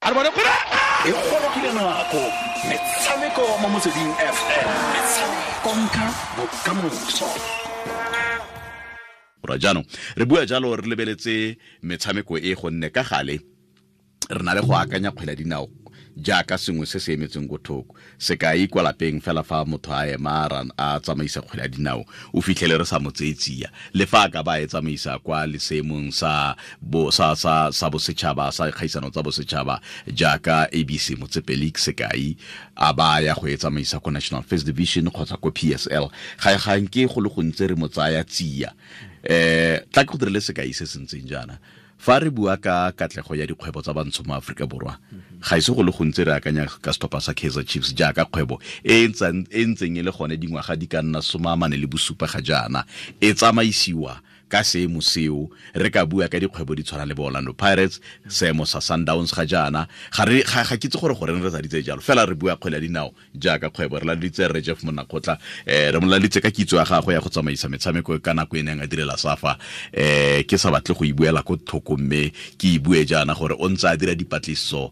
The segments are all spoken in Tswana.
E gorogile nako metshameko mo Motsweding FM, konka bokamoso. Ra jaanong re bua jalo re lebeletse metshameko e, gonne ka gale re na le go akanya kgwele ya dinao jaaka sengwe se se emetseng ko thoko. Sekai, kwa lapeng fela fa motho a ema a tsamaisa kgwele ya dinao, o fitlhele re sa mo tseye tsia, le fa a ka ba e tsamaisa kwa leseemong sa bo sa sa sa bosetšhaba, sa kgaisano tsa bosetšhaba jaaka ABC Motsepe League, sekai, a ba ya go e tsamaisa ko National First Division kgotsa ko PSL, ga ga nke go le gontsi re mo tsaya tsia. Tla ke go dirile sekai se se ntseng jaana. Fa re bua ka katlego ya dikgwebo tsa bantsho mo Aforika Borwa, ga ise go le gontsi re akanya ka setlhopha sa Kaizer Chiefs jaaka kgwebo e e ntseng e le gone dingwaga di ka nna 47 ga jaana, e tsamaisiwa ka seemo seo. Re ka bua ka dikgwebo di tshwana le bo Orlando Pirates, seemo sa Sundowns ga jaana. Ga ke itse gore goreng re sa ditse jalo, fela re bua kgwele ya dinao jaaka kgwebo. Re laleditse Rre Jeff Monakgotla, re mo laleditse ka kitso ya gagwe ya go tsamaisa metshameko ka nako e neng a direla SAFA. Ke sa batle go e buela ko thoko, mme ke e bue jaana gore o ntse a dira dipatlisiso,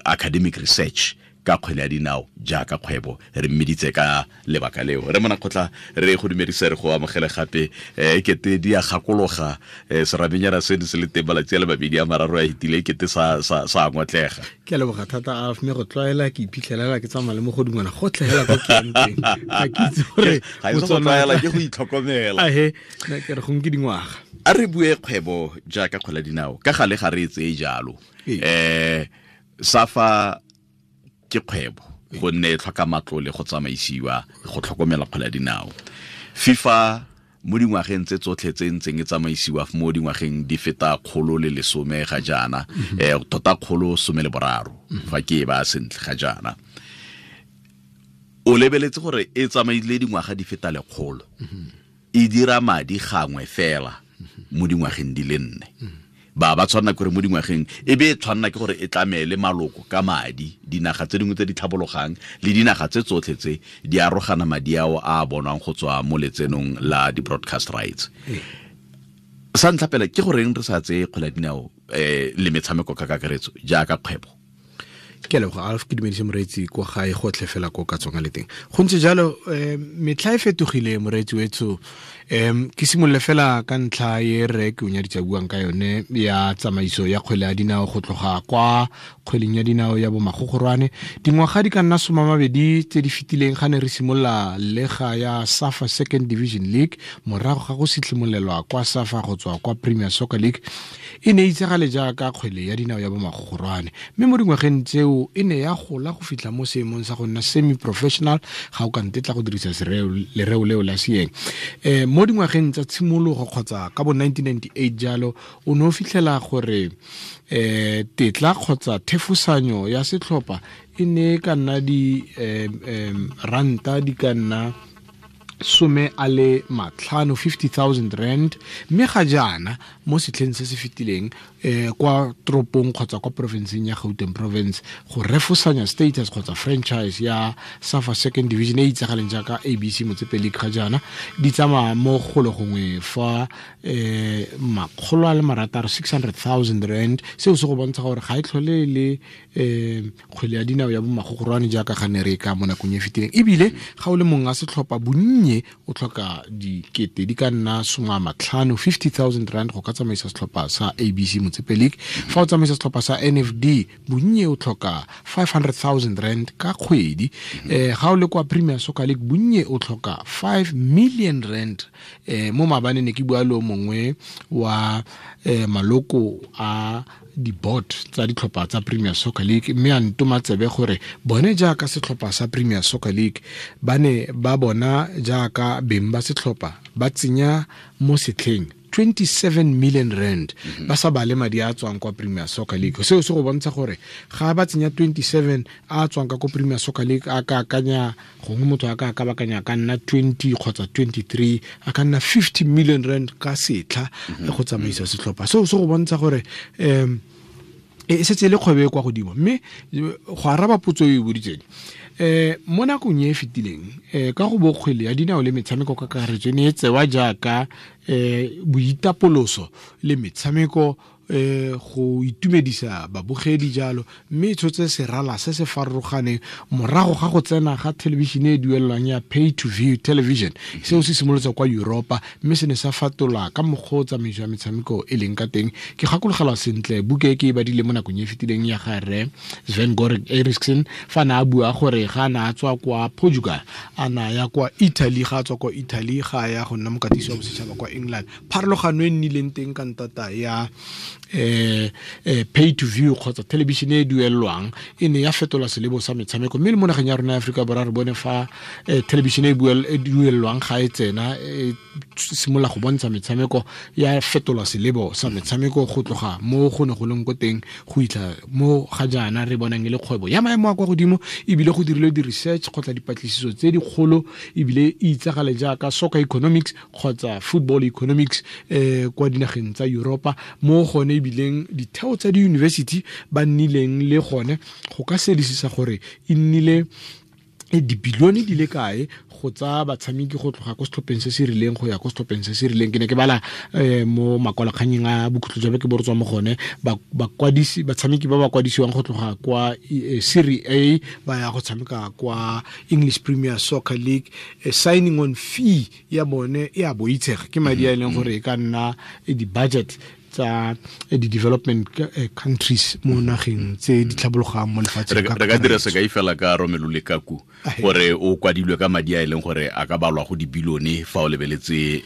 academic research ka kgwele ya dinao jaaka kgwebo. Re mmeditse ka lebaka leo. Re Monakgotla, re go dumedise, re go amogele gape. Kete di a gakologa, seramenyana seno se le teng malatsi a le mabedi a mararo a fetile, kete sa ngotlega. Ke a leboga thata, a mme go tlwaela ke iphitlhelela ke tsamaya le mogodungwana gotlhe hela ko ke yang teng, ga ke itse gore Ga e se go tlwaela, ke go itlhokomela. Ahe, nna ke re gongwe ke dingwaga. A re bue kgwebo jaaka kgwele ya dinao, ka gale ga re e tseye jalo. SAFA ke kgwebo gonne e tlhoka matlole go tsamaisiwa, go tlhokomela kgwele ya dinao. FIFA mo dingwageng tse tsotlhe tse ntseng e tsamaisiwa, mo dingwageng di feta 110 ga jaana, tota 113 fa ke e ba sentle ga jaana, o lebeletse gore e tsamaile dingwaga di feta 100, e dira madi gangwe fela mo dingwageng di le 4. Ba tshwanna ke gore mo dingwageng e be e tshwanna ke gore e tlamele maloko ka madi. Dinaga tse dingwe tse di tlhabologang le dinaga tse tsotlhe tse di arogana madi ao a bonwang go tswa mo letsenong la di-broadcast rights. Sa ntlha pele, ke goreng re sa tseye kgwele ya dinao le metshameko ka kakaretso jaaka kgwebo? Ke a leboga, Alf. Ke dumedise moreetsi kwa gae gotlhe fela ko ka tswang a le teng. Go ntse jalo, metlha e fetogile, moreetsi wetsho. Ke simolole fela ka ntlha e rre ke o nyaditse buang ka yone ya tsamaiso ya kgwele ya dinao go tloga kwa kgweleng ya dinao ya bomagogorwane. Dingwaga di ka nna 20 tse di fetileng, ga ne re simolola lega ya SAFA Second Division League morago ga go sitlhimolelwa kwa SAFA go tswa kwa Premier Soccer League, e ne e itsagale jaaka kgwele ya dinao ya bomagogorwane, mme mo dingwageng tseo e ne ya gola go fitlha mo seemong sa go nna semi-professional, ga o ka ntetla go dirisa lereo leo la seeng. Mo dingwageng tsa tshimologo kgotsa ka bo 1998 jalo, o ne o fitlhela gore tetla kgotsa thefosanyo ya setlhopha e ne e ka nna di ranta di ka nna 50, 50,000 rand. Mme ga jaana, mo setlheng se se fetileng, kwa toropong kgotsa kwa porofenseng ya Gauteng Province, go refosanya status kgotsa franchise ya SAFA Second Division e itsagaleng jaaka ABC Motsepe League ga jaana, di tsamaya mo golo gongwe fa 600,000, 600,000 rand. Seo se go bontsha gore ga e tlhole le kgwele ya dinao ya bomagogorwane jaaka ga ne re ka mo nakong e fetileng. Ebile ga o le mongwe a setlhopha, bonnye o tlhoka dikete di ka nna 50, 50,000 rand go ka tsamaisa setlhopha sa ABC Motsepe League. Fa o tsamaisa setlhopha sa NFD, bonnye o tlhoka 500,000 rand ka kgwedi. Ga o le kwa Premier Soccer League, bonnye o tlhoka 5 million rand. Mo maabane ne ke bua le o mongwe wa maloko a di-board tsa ditlhopha tsa Premier Soccer League, mme a ntoma tsebe gore bone jaaka setlhopha sa Premier Soccer League ba ne ba bona jaaka beng ba setlhopha ba tsenya mo setlheng 27 million rand, ba sa bale madi a tswang kwa Premier Soccer League. Seo se go bontsha gore ga ba tsenya 27 a tswang ka ko Premier Soccer League, a ka akanya gongwe motho a ka kabakanya ka nna 20 kgotsa 23, a ka nna 50 million rand ka setlha go tsamaisa setlhopha. Seo se go bontsha gore e setse e le kgwebo e kwa godimo. Mme go araba potso e o e boditseng, mo nakong e e fetileng, ka go bo kgwele ya dinao le metshameko ka kakaretso e ne e tsewa jaaka boitapoloso le metshameko Go itumedisa babogedi jalo, mme e tshotse serala se se farologaneng morago ga go tsena ga thelebišene e duelelwang ya pay to view television. Seo se simolotse kwa Europa, mme se ne sa fatola ka mokgwa o tsamaiso ya metshameko e leng ka teng. Ke gakologelwa sentle buka e ke e badile mo nakong e fetileng ya ga rre Sven Goran Eriksson, fa na a bua gore ga na a tswa kwa Portugal a na ya kwa Italy, ga a tswa kwa Italy ga ya go nna mokatisi wa bosetšhaba kwa England. Pharologano e nnileng teng ka ntata ya pay to view kgotsa television e duelelwang e ne ya fetola selebo sa metshameko, mme le mo nageng ya rona ya Aforika Borwa re bone fa television e duelelwang ga e tsena e simolola go bontsha metshameko, ya fetola selebo sa metshameko go tloga mo go ne go leng ko teng go itlha mo ga jaana re bonang e le kgwebo ya maemo a kwa godimo, ebile go dirilwe di-research kgotsa dipatlisiso tse dikgolo, ebile e itsagale jaaka soccer economics kgotsa football economics kwa dinageng tsa Europa, mo gone ebileng ditheo tsa di-university ba nnileng le gone go ka sedisisa gore e nnile dibilione di le kae go tsa batshameki go tloga ko setlhopheng se se rileng go ya ko setlhopheng se se rileng. Ke ne ke bala mo makwalakganyeng a bokhutlo jwa beke bo re tswa mo gone, bakwadisi batshameki ba ba kwadisiwang go tloga kwa Serie A ba ya go tshameka kwa English Premier Soccer League, signing on fee ya bone e a boitshega, ke madi a e leng gore e ka nna di-budget tsa di-development countries mo nageng tse di tlhabologang mo lefatsheng. Re ka dira sekai fela ka Romelu Lukaku, gore o kwadilwe ka madi a e leng gore a ka balwa go dibilione fa o lebeletse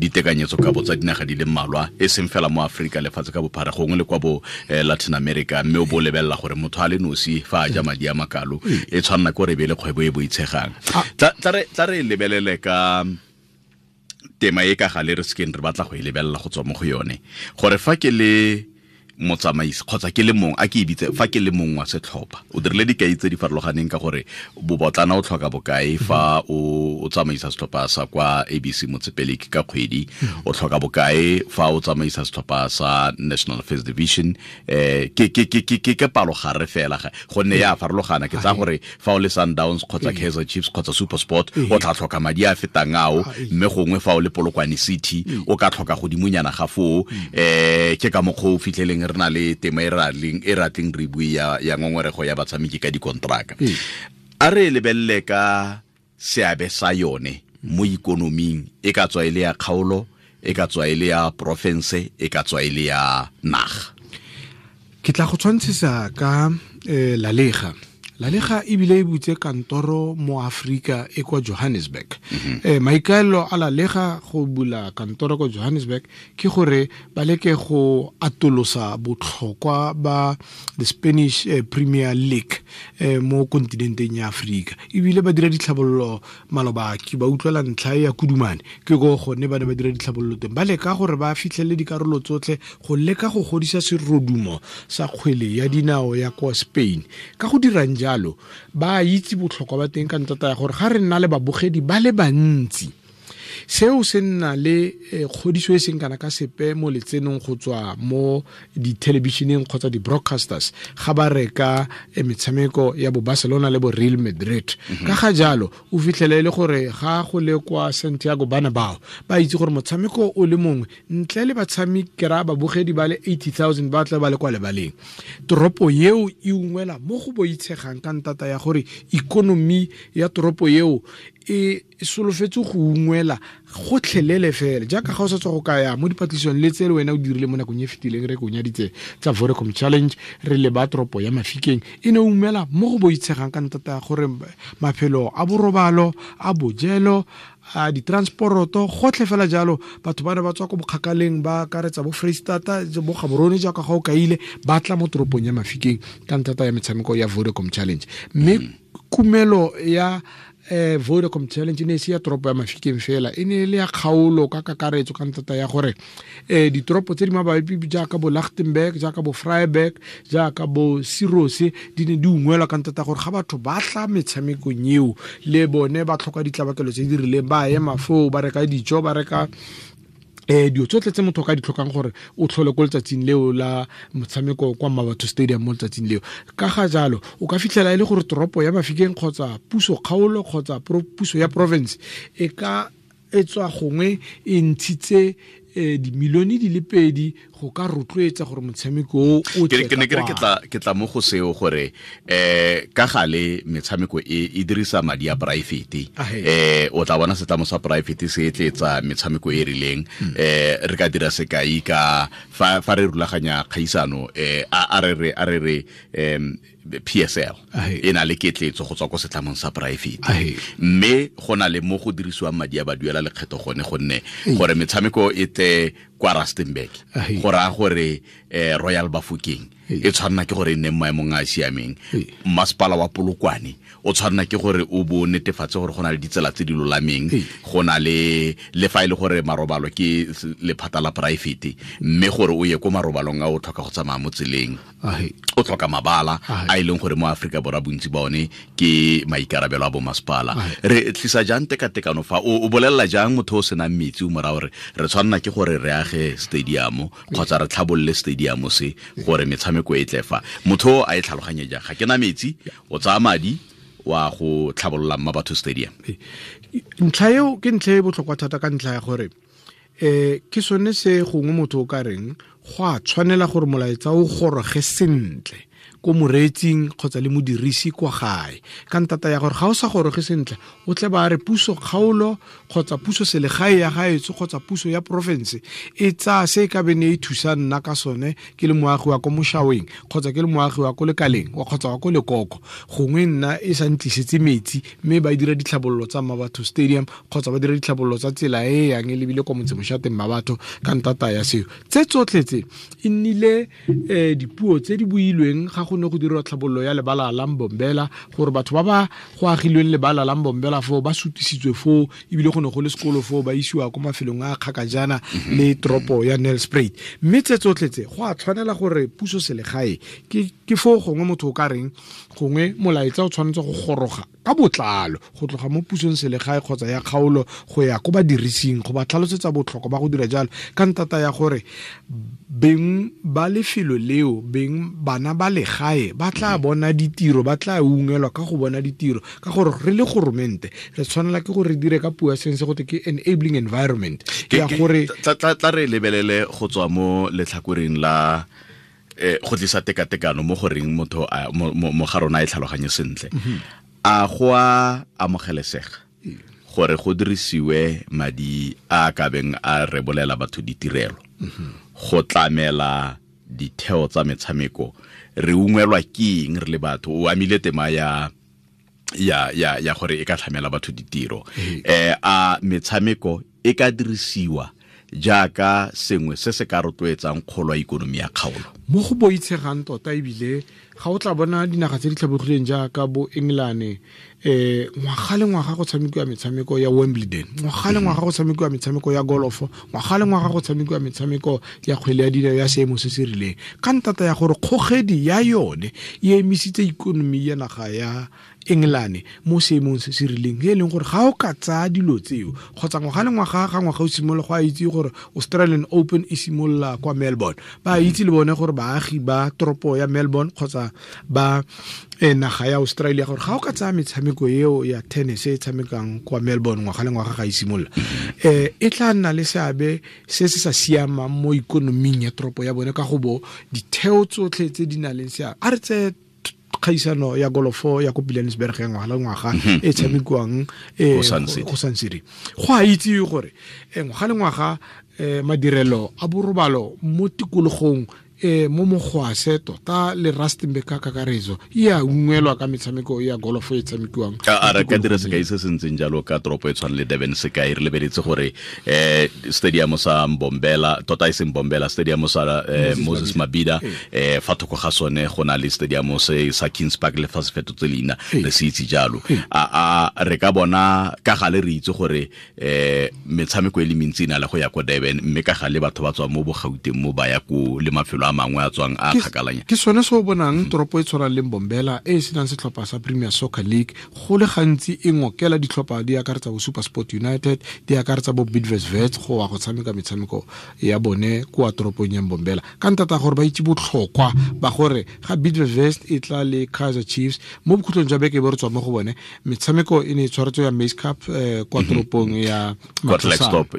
ditekanyetso ka bo tsa dinaga di le mmalwa, e seng fela mo Aforika, lefatshe ka bophara, gongwe le kwa bo Latin America, mme o bo lebelela gore motho a le nosi fa a ja madi a makalo e tshwanna ke gore e be le kgwebo e boitshegang. Tla re lebelele ka tema e ka gale re sekeng re batla go e lebelela go tswa mo go yone, gore fa ke le motsamaisi kgotsa ke le mong, a ke e bitse fa ke le mong wa setlhopha, o dirile dikai tse di farologaneng ka gore bobotlana o tlhoka bokae fa o tsamaisa setlhopha sa kwa ABC Motsepe ka kgwedi, o tlhoka bokae fa o tsamaisa setlhopha sa National First Division, ke palo gare fela gonne ya farologana. Ke tsaya gore fa o le Sundowns kgotsa Kaizer Chiefs kgotsa SuperSport o tla tlhoka madi a fetang ao, mme gongwe fa o le Polokwane City o ka tlhoka godimonyana ga foo. Ke ka mokgwa o fitlheleng re na le tema e ratleng re bue ya ngongorego ya batshameki ka dikontraka. A re lebelele ka seabe sa yone mo ikonoming, e ka tswa e le ya kgaolo, e ka tswa e le ya porofense, e ka tswa e le ya naga. Ke tla go tshwantshisa ka La Liga. La Liga ebile e butse kantoro mo Afrika e kwa Johannesburg. Maikaelelo a La Liga go bula kantoro kwa Johannesburg ke gore ba leke go atolosa botlhokwa ba the Spanish Premier League mo kontinenteng ya Afrika. Ebile ba dira ditlhabololo maloba ke ba utlwela ntlha ya Kudumane, ke go gone ba ne ba dira ditlhabololo teng, ba leka gore ba fitlhelele dikarolo tsotlhe go leka go godisa serodumo sa kgwele ya dinao ya kwa Spain. Ka go dirang jalo ba itse botlhokwa ba teng ka ntata ya gore ga re nna le babogedi ba le bantsi, seo se nna le kgodiso e seng kana ka sepe mo letsenong go tswa mo dithelebišeneng kgotsa di-broadcasters ga ba reka metshameko ya bo Barcelona le bo Real Madrid. Ka ga jalo o fitlhele le gore ga go le kwa Santiago Bernabeu ba itse gore motshameko o le mongwe ntle le batshameki ra babogedi ba le 80,000 ba tla ba le kwa lebaleng, toropo eo e ungwela mo go boitshegang ka ntata ya gore ikonomi ya toropo eo e solofetse go ungwela gotlhelele fela. Jaaka ga o sa tswa go kaya mo dipatlisong le tse le wena o dirile mo nakong e fetileng, re konyaditse tsa Vodacom Challenge re le ba toropo ya Mafikeng, e ne ungwela mo go boitshegang ka ntata ya gore maphelo a borobalo, a bojelo, a ditransporoto, gotlhe fela jalo. Batho ba ne ba tswa ko bokgakaleng ba akaretsa bo Freistata, bo Gaborone jaaka ga o kaile, ba tla mo toropong ya Mafikeng ka ntata ya metshameko ya Vodacom Challenge. Mme kumelo ya Vodacom Challenge e ne e se ya toropo ya Mafikeng fela, e ne e le ya kgaolo ka kakaretso ka ntata ya gore ditoropo tse di mabapi jaaka bo Lichtenburg, jaaka bo Vryburg, jaaka bo Sirose di ne di ungwelwa ka ntata gore ga batho ba tla metshamekong eo le bone ba tlhoka ditlabakelo tse di rileng, ba ema foo ba reka dijo, ba reka dilo tsotlhe tse motho ka di tlhokang gore o tlhole ko letsatsing leo la motshameko kwa Mmabatho Stadium mo letsatsing leo. Ka ga jalo o ka fitlhela e le gore toropo ya Mafikeng kgotsa puso kgaolo kgotsa puso ya province e ka e tswa gongwe e ntshitse dimilione di le 2 go ka rotloetsa gore motshameko o tle. Ke ne ke re ke tla mo go seo gore ka gale metshameko e dirisa madi a private, o tla bona setlamo sa private se etletsa metshameko e rileng. Re ka dira sekai ka fa re rulaganya kgaisano, a re re PSL e na le ketletso go tswa ko setlamong sa private, mme go na le mo go dirisiwang madi a ba duela lekgetho gone, gonne gore metshameko e tle kwa Rustenburg go raya gore Royal Bafokeng e tshwanna ke gore e nne maemong a a siameng, masepala wa Polokwane o tshwanna ke gore o bo netefatse gore go na le ditsela tse di lolameng, go na le fa e le gore marobalo ke lephata la private, mme gore o ye ko marobalong a o tlhoka go tsamaya mo tseleng, o tlhoka mabala a e leng gore mo Afrika Borwa bontsi ba one ke maikarabelo a bo masepala. Re tlisa jang tekatekano fa o bolelela jang motho o senang metsi o mora gore re tshwanna ke gore re age stadium kgotsa re tlhabolole stadium se gore metshameko e tle fa, motho a e tlhaloganye jang? Ga ke na metsi, o tsaya madi wa go tlhabolola Mmabatho Stadium. Ntlha eo ke ntlha e botlhokwa thata ka ntlha ya gore ke sone se gongwe motho o ka reng go a tshwanela gore molaetsa o goroge sentle ko moreetsing kgotsa le modirisi kwa gae, ka ntata ya gore ga o sa goroge sentle o tle ba re puso kgaolo kgotsa puso selegae ya gaetsho kgotsa puso ya porofense e tsaya se e ka bene e thusa nna ka sone ke le moagi wa ko Moshaweng kgotsa ke le moagi wa ko Lekaleng kgotsa wa ko Lekoko, gongwe nna e sa ntlisetse metsi mme ba dira ditlhabololo tsa Mmabatho Stadium kgotsa ba dira ditlhabololo tsa tsela e yang e lebile kwa motsemošateng Mmabatho ka ntata ya seo. Tse tsotlhe tse e nnile dipuo tse di builweng ga go ne go dirwa tlhabololo ya lebala la Mbombela, gore batho ba ba go agilweng lebala la Mbombela foo ba sutisitswe foo, ebile go ne go le sekolo foo ba isiwa ko mafelong a kgakajana le toropo ya Nelspruit. Mme tse tsotlhe tse go a tshwanela gore puso selegae ke foo gongwe motho o ka reng gongwe molaetsa o tshwanetse go goroga ka botlalo go tloga mo pusong selegae kgotsa ya kgaolo go ya ko badirising go ba tlhalosetsa botlhokwa ba go dira jalo, ka ntata ya gore beng ba lefelo leo, beng bana ba legae ba tla bona ditiro, ba tla ungelwa ka go bona ditiro, ka gore re le goromente re tshwanela ke gore re dire ka puo ya seng se gote ke enabling environment ya gore tla re lebelele go tswa mo letlhakoreng la go tlisa tekatekano mo goreng motho mo ga rona e tlhaloganye sentle. A go a amogelesega gore go dirisiwe madi a ka beng a rebolela batho ditirelo go tlamela ditheo tsa metshameko? Re ungwelwa ke eng re le batho? O amile tema ya gore e ka tlhamela batho ditiro. A metshameko e ka dirisiwa jaaka sengwe se se ka rotloetsang kgolo ya ikonomi ya kgaolo? Mo go boitshegang tota, ebile ga o tla bona dinaga tse di tlhabogileng jaaka bo England, ngwaga le ngwaga go tshamekiwa metshameko ya Wimbledon, ngwaga le ngwaga go tshamekiwa metshameko ya golofo, ngwaga le ngwaga go tshamekiwa metshameko ya kgwele ya dinao ya seemo se se rileng, ka ntata ya gore kgogedi ya yone e emisitse ikonomi ya naga ya England mo seemong se se rileng, e leng gore ga o ka tsaya dilo tseo kgotsa ngwaga le ngwaga ga ngwaga o simolola go a itse gore Australian Open e simolola kwa Melbourne, ba itse le bone gore baagi ba toropo ya Melbourne kgotsa ba naga ya Australia gore ga o ka tsaya metshameko eo ya tennis e tshamekang kwa Melbourne ngwaga le ngwaga ga e simolola, e tla nna le seabe se se sa siamang mo ikonoming ya toropo ya bone, ka go bo ditheo tsotlhe tse di nang le seabe. A re tseye kgaisano ya golofo ya ko Pilanesberg ya ngwaga le ngwaga e tshamekiwang go Sun City. Go a itse gore ngwaga le ngwaga madirelo a borobalo mo tikologong mo Mogwase tota le Rustenburg ka kakaretso e a ungwelwa ka metshameko ya golofo e tshamekiwang. A re ka dira sekai se se ntseng jalo ka toropo e tshwana le Durban sekai, re lebeletse gore stadium sa Mbombela, tota e seng Mbombela, stadium sa Moses Mabhida, fa thoko ga sone go na le stadium se sa Kings Park le fa se fetotse leina re se itse jalo. A re ka bona ka gale re itse gore metshameko e le mentsi e na le go ya ko Durban, mme ka gale batho ba tswa mo Bogauteng mo ba ya ko le mafelo a mangwe a tswang a kgakalanya. Ke sone se o bonang toropo e tshwanang le Mbombela e senang setlhopha sa Premier Soccer League go le gantsi e ngokela ditlhopha di akaretsa bo SuperSport United, di akaretsa bo Bidvest Wits go wa go tshameka metshameko ya bone kwa toropong ya Mbombela, ka ntata gore ba itse botlhokwa ba gore ga Bidvest Wits e tla le Kaizer Chiefs mo bokhutlong jwa beke e bo re tswa mo go bone, metshameko e ne e tshwaretswe ya Maize Cup kwa toropong ya Klerksdorp.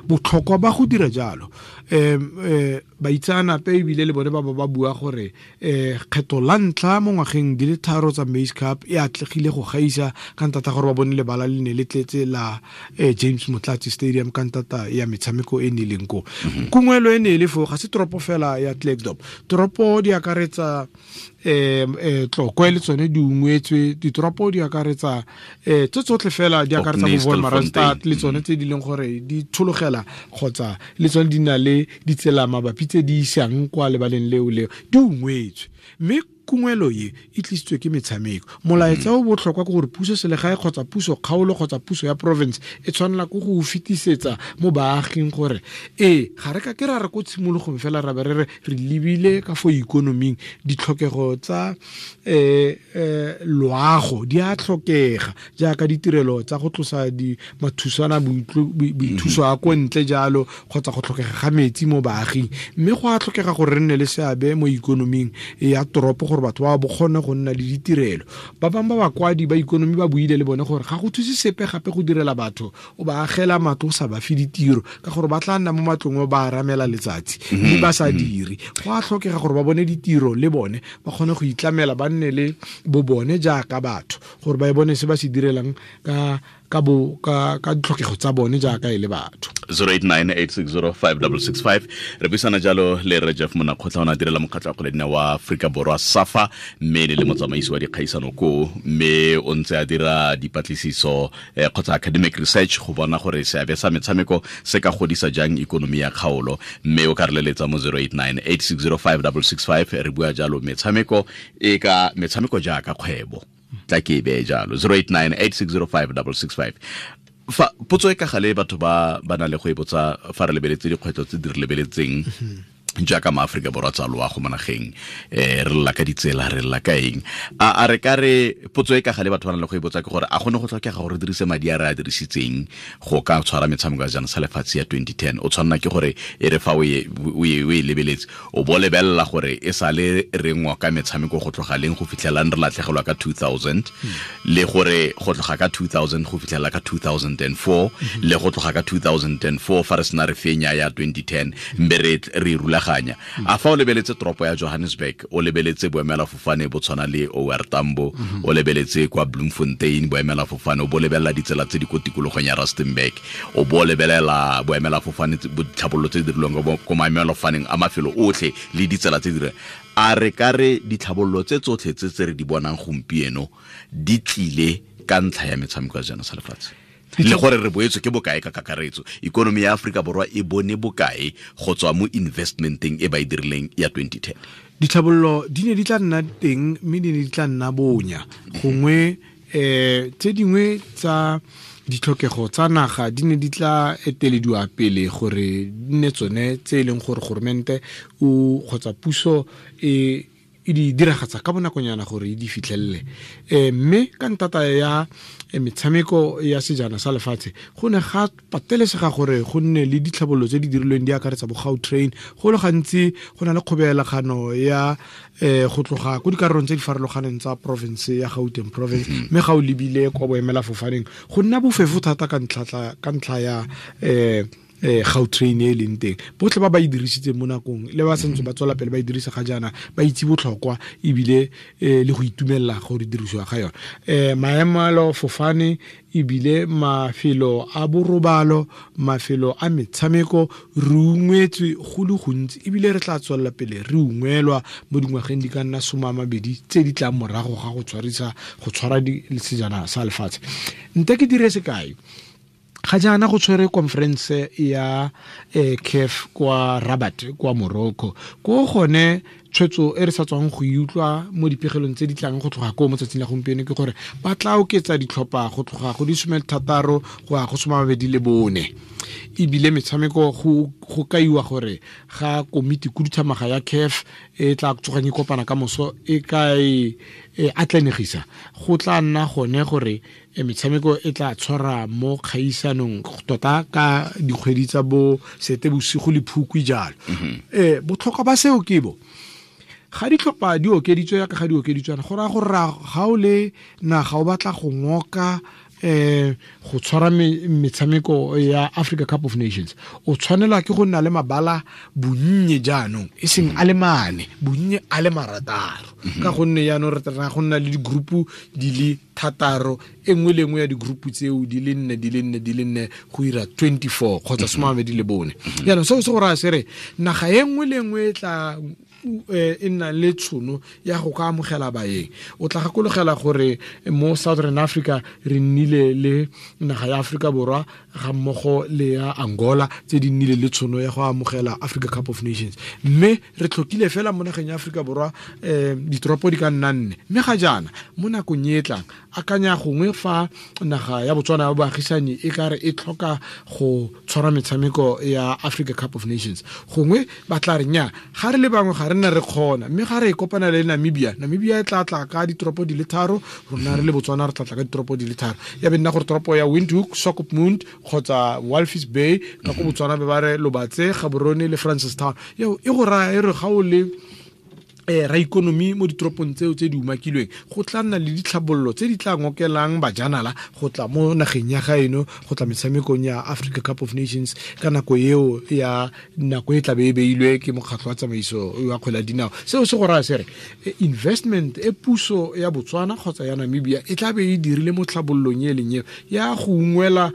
Botlhokwa ba go dira jalo, baitseanape ebile le bone ba ba bua gore kgetho la ntlha mo ngwageng di le 3 tsa Maize Cup e atlegile go gaisa ka ntata gore ba bone lebala le ne le tletse la James Motlatsi Stadium ka ntata ya metshameko e ne leng ko. Kungwelo e ne e le fo ga se toropo fela ya Klerksdorp, toropo di akaretsa Tlokwe le tsone di ungwetswe, ditoropo di akaretsa tse tsotlhe fela di akaretsa bo Wolmaranstad le tsone tse di leng gore di tshologela kgotsa le tsone di na le ditsela mabapi tse di isang kwa lebaleng leo leo di ungwetswe. Mme kungwelo e e tlisitswe ke metshameko. Molaetsa o botlhokwa ke gore puso selegae kgotsa puso kgaolo kgotsa puso ya province e tshwanela ke go fetisetsa mo baaging gore ga re ka ke ra re ko tshimologong fela ra be re re lebile ka fo ikonoming, ditlhokego tsa loago di a tlhokega jaaka ditirelo tsa go tlosa di mathusana boithuso a ko ntle jalo kgotsa go tlhokega ga metsi mo baaging. Mme go a tlhokega gore re nne le seabe mo ikonoming ya toropo gore batho ba bo kgone go nna le ditirelo. Ba bangwe ba bakwadi ba ikonomi ba buile le bone gore ga go thuse sepe gape go direla batho o ba agela matlo o sa ba fe ditiro, ka gore ba tla nna mo matlong ba aramela letsatsi mme ba sa dire. Go a tlhokega gore ba bone ditiro le bone ba kgone go itlamela, ba nne le bo bone jaaka batho gore ba e bone se ba se direlang ka ditlhokego tsa bone jaaka e le batho. 0898605665 re buisana jalo le Rre Jeff Monnakgotla, o ne a direla mokgatlho wa kgwele dinao wa Aforika Borwa SAFA, mme le motsamaisi wa dikgaisano koo, mme o ntse a dira dipatlisiso kgotsa academic research go bona gore seabe sa metshameko se ka godisa jang ikonomi ya kgaolo. Mme o ka re leletsa mo 0898605665. Re bua jalo metshameko e ka metshameko jaaka kgwebo, tla ke e beye jalo. 0898605665. Fa potso e ka gale batho ba na le go e botsa fa re lebeletse dikgwetlho tse di re lebeletseng jaaka maAforika Borwa tsa loago mo nageng, re lla ka ditsela, re lla ka eng, a re ka re potso e ka gale batho ba na le go e botsa ke gore a gone go tlhokega gore re dirise madi a re a dirisitseng go ka tshwara metshameko ya jana sa lefatshe ya 2010. O tshwanela ke gore e re fa o e lebeletse o bo lebelela gore e sale re ngoka metshameko go tloga leng go fitlhelang re latlhegelwa ka 2000, le gore go tloga ka 2000 go fitlhela ka 2004, le go tloga ka 2004 fa re sena re fenya ya 2010 mbe re rula. A fa o lebeletse toropo ya Johannesburg, o lebeletse boemelafofane bo tshwana le OR Tambo, o lebeletse kwa Bloemfontein boemelafofane, o bo lebelela ditsela tse di ko tikologong ya Rustenburg, o bo lebelela boemelafofane ditlhabololo tse di dirilweng ko maemelafofaneng a mafelo otlhe le ditsela tse di dirilweng, a re ka re ditlhabololo tse tsotlhe tse re di bonang gompieno di tlile ka ntlha ya metshameko ya sejana sa lefatshe? Le gore re boetswe ke bokae ka kakaretso, ikonomi ya Aforika Borwa e bone bokae go tswa mo investmenteng e ba e dirileng ya 2010? Ditlhabololo di ne di tla nna teng mme di ne di tla nna bonya. Gongwe tse dingwe tsa ditlhokego tsa naga di ne di tla etelediwa pele gore di nne tsone tse e leng gore goromente o kgotsa puso e di diragatsa ka bonakonyana gore e di fitlhelele. Mme ka ntata ya metshameko ya sejana sa lefatshe go ne ga patelesega gore go nne le ditlhabololo tse di dirilweng di akaretsa bo Gautrain. Go le gantsi go na le kgobelagano ya go tloga ko dikarolong tse di farologaneng tsa province ya Gauteng province, mme ga o lebile kwa boemelafofaneng go nna bofefo thata ka ntlha ya Gautrain e leng teng. Botlhe ba ba e dirisitseng mo nakong le ba santse ba tswela pele ba e dirisa ga jaana ba itse botlhokwa ebile le go itumelela gore dirisiwa ga yone. Maemelo fofane ebile mafelo a borobalo, mafelo a metshameko, re ungwetswe go le gontsi ebile re tla tswelela pele re ungwelwa mo dingwageng di ka nna 20 tse di tlang morago ga go tshwara sejana sa lefatshe. Nte ke dire sekai, ga jaana go tshwere conference ya CAF kwa Rabat kwa Morocco, ko gone tshwetso e re sa tswang go utlwa mo dipegelong tse di tlang go tloga ko mo tsatsing la gompieno ke gore ba tla oketsa ditlhopha go tloga go di 16 go ya go 24. Ebile metshameko go kaiwa gore ga komiti khuduthamaga ya CAF e tla tsogang e kopana ka moso e ka e atlanegisa, go tla nna gone gore metshameko e tla tshwara mo kgaisanong tota ka dikgwedi tsa bo Seetebosigo le Phukwi jalo. Botlhokwa ba seo ke bo ga ditlhopha di okeditswe yaka ga di okeditswana, go raya gore ga o le naga o batla go ngoka Go tshwara metshameko ya Africa Cup of Nations, o tshwanelwa ke go nna le mabala bonnye jaanong, e seng a le mane, bonnye a le 6, ka gonne jaanong re tla go nna le di-group di le 6, e nngwe le nngwe ya di-group tseo di le 4 di le 4 di le 4 go ira 24 kgotsa 24. Jaanong seo se go raya se re naga e nngwe le nngwe e tla e nna le tshono ya go ka amogela baeng. O tla gakologela gore mo Southern Africa re nnile le naga ya Afrika Borwa ga mmogo le ya Angola tse di nnile le tshono ya go amogela Africa Cup of Nations, mme re tlhokile fela mo nageng ya Afrika Borwa ditoropo di ka nna 4. Mme ga jaana mo nakong e tlang, akanya gongwe fa naga ya Botswana ya boagisani e ka re e tlhoka go tshwara metshameko ya Africa Cup of Nations, gongwe ba tla re nya ga re le bangwe ga re nna re kgona, mme ga re e kopana le Namibia, Namibia e tla tla ka ditoropo di le 3, rona re le Botswana re tla tla ka ditoropo di le 3. Ya be nna gore toropo ya Windhoek, Swakopmund kgotsa Walvis Bay ka ko Botswana be ba re Lobatse, Gaborone le Francistown. Eo e go raya e re ga o le ra ikonomi mo ditoropong tseo tse di umakilweng, go tla nna le ditlhabololo tse di tla ngokelang bajanala go tla mo nageng ya gaeno, go tla metshamekong ya Africa Cup of Nations ka nako eo ya nako e tla be e beilwe ke mokgatlho wa tsamaiso wa kgwele ya dinao. Seo se go raya se re investment e puso ya Botswana kgotsa ya Namibia e tla be e dirile mo tlhabololong e leng eo ya go ungwela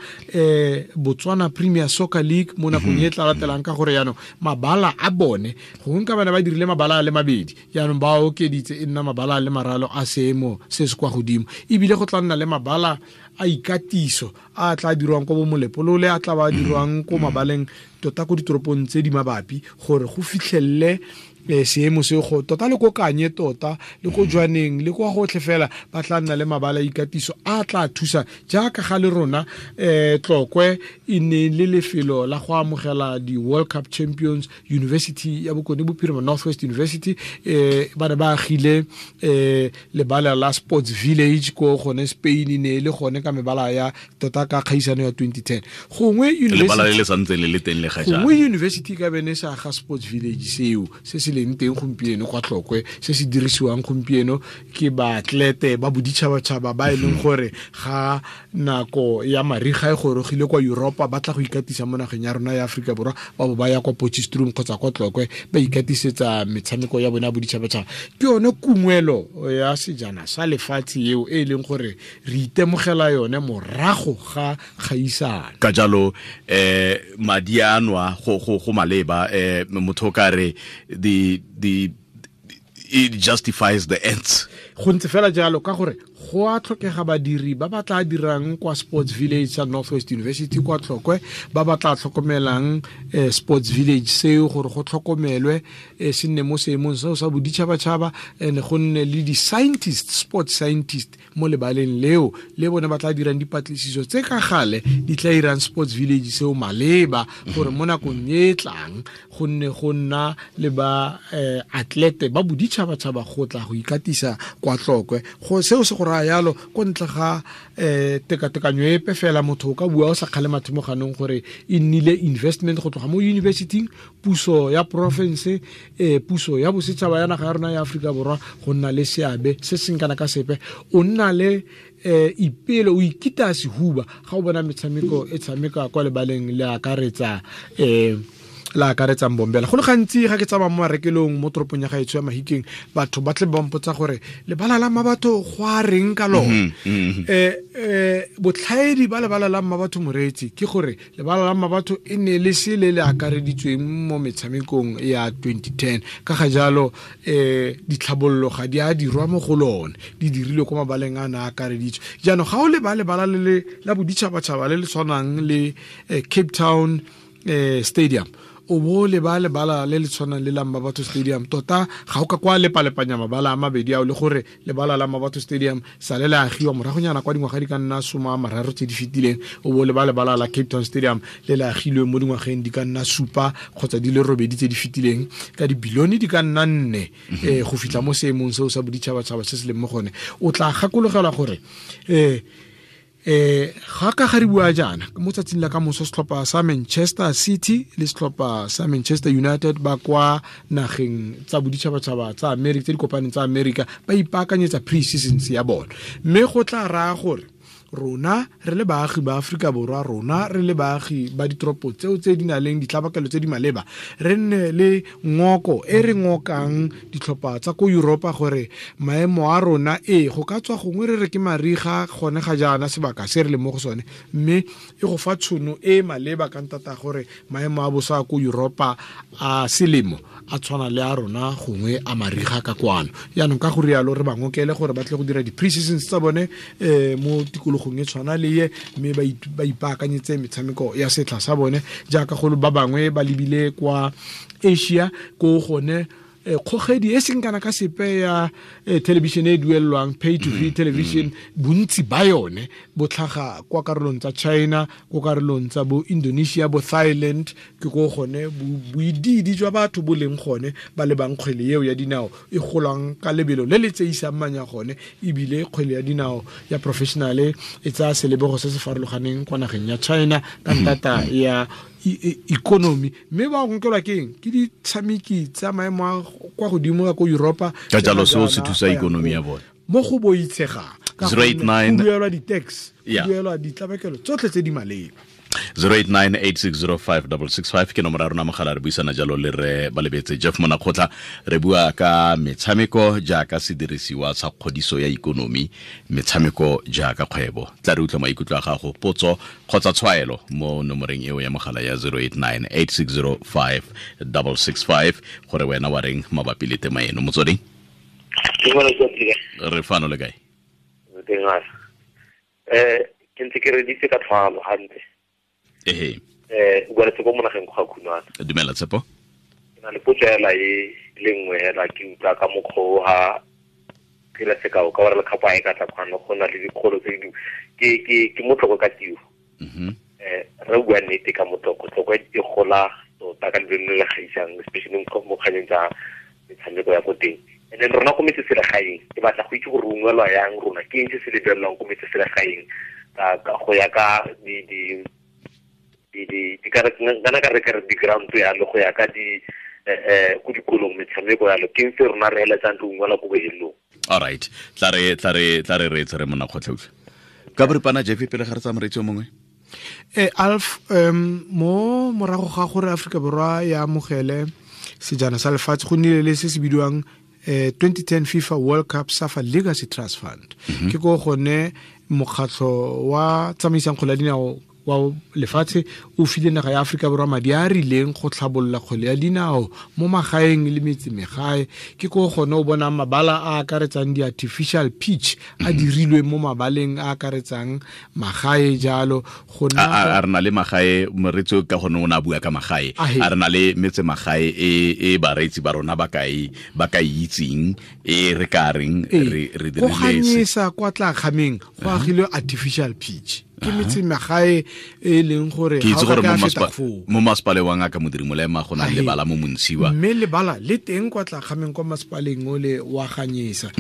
Botswana Premier Soccer League mo nakong e tla latelang, ka gore jaanong mabala a bone gongwe ka bana ba dirile mabala a le mabedi, jaanong ba okeditse e nna mabala a le maralo a seemo se se kwa godimo, ebile go tla nna le mabala a ikatiso a tla dirwang ko bo Molepolole, a tla ba dirwang ko mabaleng tota ko ditoropong tse di mabapi, gore go fitlhelele seemo se go tota le ko Kanye tota le ko Jwaneng le kwa gotlhe fela ba tla nna le mabala a ikatiso a tla thusa jaaka ga le rona. Tlokwe e ne le lefelo la go amogela di-World Cup Champions, University ya Bokone Bophirima, Northwest University, ba ne ba agile lebala la Sports Village ko gone Spain, ne le gone ka mebala ya tota ka kgaisano ya 2010. Gongwe lebala le le santse le le teng le ga jaana, gongwe university ka bene sa ga Sports Village seo se se leng teng gompieno kwa Tlokwe, se se dirisiwang gompieno ke baatlete ba boditšhabatšhaba ba e leng gore ga nako ya mariga e gorogile kwa Europa ba tla go ikatisa mo nageng ya rona ya Afrika Borwa, ba bo ba ya kwa Potchefstroom kgotsa kwa Tlokwe ba ikatisetsa metshameko ya bone ya boditšhabatšhaba. Ke yone kungwelo ya sejana sa lefatshe eo e leng gore re itemogela yone morago ga kgaisano. Ka jalo madi a nwa go maleba, motho ka re the it justifies the ends. Go ntse fela jalo ka gore go a tlhokega badiri ba ba tla dirang kwa Sports Village sa Northwest University kwa Tlokwe, ba ba tla tlhokomelang Sports Village seo gore go tlhokomelwe se nne mo seemong seo sa boditšhabatšhaba, and go nne le di-scientist, sports scientist mo lebaleng leo le bone ba tla dirang dipatlisiso tse ka gale di tla irang Sports Village seo maleba, gore mo nakong e tlang go nne go nna le ba atlete ba boditšhabatšhaba go tla go ikatisa kwa Tlokwe. Go seo se go raya yalo ko ntle ga tekatekanyo epe fela, motho o ka bua o sa kgale mathe mo ganong gore e nnile investment go tloga mo universityng, puso ya province, puso ya bosetšhaba ya naga ya rona ya Afrika Borwa go nna le seabe se seng kana ka sepe. O nna le ipelo, o ikita sehuba ga o bona metshameko e tshameka kwa lebaleng le akaretsa la akaretsang Bombela. Go le gantsi ga ke tsamaya mo marekelong mo toropong ya gaetsho ya Mahikeng, batho ba tle ba mpotsa gore lebala la Mmabatho go a reng ka lone. Botlhaedi ba lebala la Mmabatho moreetsi ke gore lebala la Mmabatho e ne le se le le akareditsweng mo metshamekong ya 2010, ka ga jalo ditlhabololo ga di a dirwa mo go lone, di dirilwe ko mabaleng a na akareditswe. Jaanong ga o leba lebala le la boditšhabatšhaba le le tshwanang le Cape Town Stadium, o bo leba lebala le le tshwanang le la Mmabatho Stadium, tota ga o ka kwa lepalepanya mabala a mabedi ao, le gore lebala la Mmabatho Stadium sa le le agiwa moragonyana kwa dingwaga di ka nna 30 tse di fetileng, o bo leba lebala la Cape Town Stadium le le agilwe mo dingwageng di ka nna 7 kgotsa di le 8 tse di fetileng ka dibilione di ka nna 4 go fitlha mo seemong seo sa boditšhabatšhaba se se leng mo gone. O tla gakologelwa gore ga ka ga re bua jaana mo tsatsing la ka moso setlhopha sa Manchester City le setlhopha sa Manchester United ba kwa nageng tsa boditšhabatšhaba tsa America tse di kopaneng tsa America ba ipaakanyetsa pre-seasons ya bone, mme go tla raya gore Rona re le baagi ba Aforika Borwa, rona re le baagi ba ditoropo tseo tse di nang le ditlabakelo tse di maleba, re nne le ngoko e re ngokang ditlhopha tsa ko Europa gore maemo a rona go ka tswa gongwe re re ke mariga gone ga jaana sebaka se re le mo go sone, mme e go fa tshono e maleba ka ntata gore maemo a bosa ko Europa a selemo a tshwana le a rona gongwe a mariga ka kwano. Jaanong ka go rialo re ba ngokele gore ba tle go dira di-pre-seasons tsa bone mo tikologong e tshwana le ye, mme ba ipaakanyetse metshameko ya setlha sa bone jaaka go ba bangwe ba lebile kwa Asia ko gone kgogedi e seng kana ka sepe ya television e duelelwang pay to free television, bontsi ba yone bo tlhaga kwa karolong tsa China, kwa karolong tsa bo Indonesia, bo Thailand, ke ko gone boididi jwa batho bo leng gone ba lebang kgwele eo ya dinao e golang ka lebelo le le tseisang manya gone, ebile kgwele ya dinao ya professional e tsaya selebego se se farologaneng kwa nageng ya China ka ntata ya economy. Mme ba nkelwa ke eng? Ke ditshameki tsa maemo a kwa godimo ka ko Europa, ka jalo seo se thusa ikonomi ya bone mo go boitshegang ka 089 duelwa di-tax, duelwa ditlabakelo tsotlhe tse di maleba. 0898605665 ke nomoro ya rona mogala, re buisana jalo le re Balebetse Jeff Monakgotla, re bua ka metshameko jaaka sedirisiwa sa kgodiso ya ikonomi, metshameko jaaka kgwebo. Tla re utlwa maikutlo a gago, potso kgotsa tshwaelo mo nomoreng eo ya mogala ya 0898605665 gore wena wa reng mabapi le tema eno. Motsweding, re fano le kae? Ke ntse ke reditse ka tlhwalo hantle. Ehe. O bua le Tshepo mo nageng go ga Khunwana. Dumela Tshepo. Ke na le potso hela e le nngwe hela, ke utlwa ka mokgwa o ha ke la sekao ka gore lekgapo a e ka tla kwano go na le dikgolo tse di ke motlhoko ka tiro. Re bua nnete ka motlhoko, tlhoko e gola tota ka lebelo le le gaisang, especially mo kganyeng tsa metshameko ya ko teng. And then rona ko metseselegaeng ke batla go itse gore ungwelwa yang rona, ke eng se se lebelelwang ko metseselegaeng ka go ya ka di kana ka re ka re di-ground yalo, go ya ka di ko dikolong metshameko yalo, ke eng se rona re eletsang re ungwela ko bohelong. All right, tla re re Monakgotla utlwa ka boripana Jeff pele ga re tsaya moreetsi o mongwe. Alf, mo morago ga gore Aforika Borwa ya amogele sejana sa lefatshe go nnile le se se bidiwang 2010 FIFA World Cup SAFA Legacy Trust Fund. Ke ko gone mokgatlho wa tsamaisang kgwele ya dinao wa lefatshe o file naga ya Aforika Borwa madi a rileng go tlhabolola kgwele ya dinao mo magaeng le metsemegae. Ke ko gone o bonang mabala a akaretsang di-artificial pitch a dirilwe mo mabaleng a akaretsang magae jalo. Go a re na le magae, moreetsi ka gone o ne a bua ka magae, a re na le metsemagae e bareetsi ba rona ba ka e itseng e re ka reng re dirile go ganyesa kwa tla kgameng go agilwe artificial pitch. Ke metsemagae e leng gore ke itse gore mo masepaleng wa Ngaka Modiri Molema go na le lebala mo Montshiwa, mme lebala le teng kwa tla kgameng kwa masepaleng ole wa Ganyesa,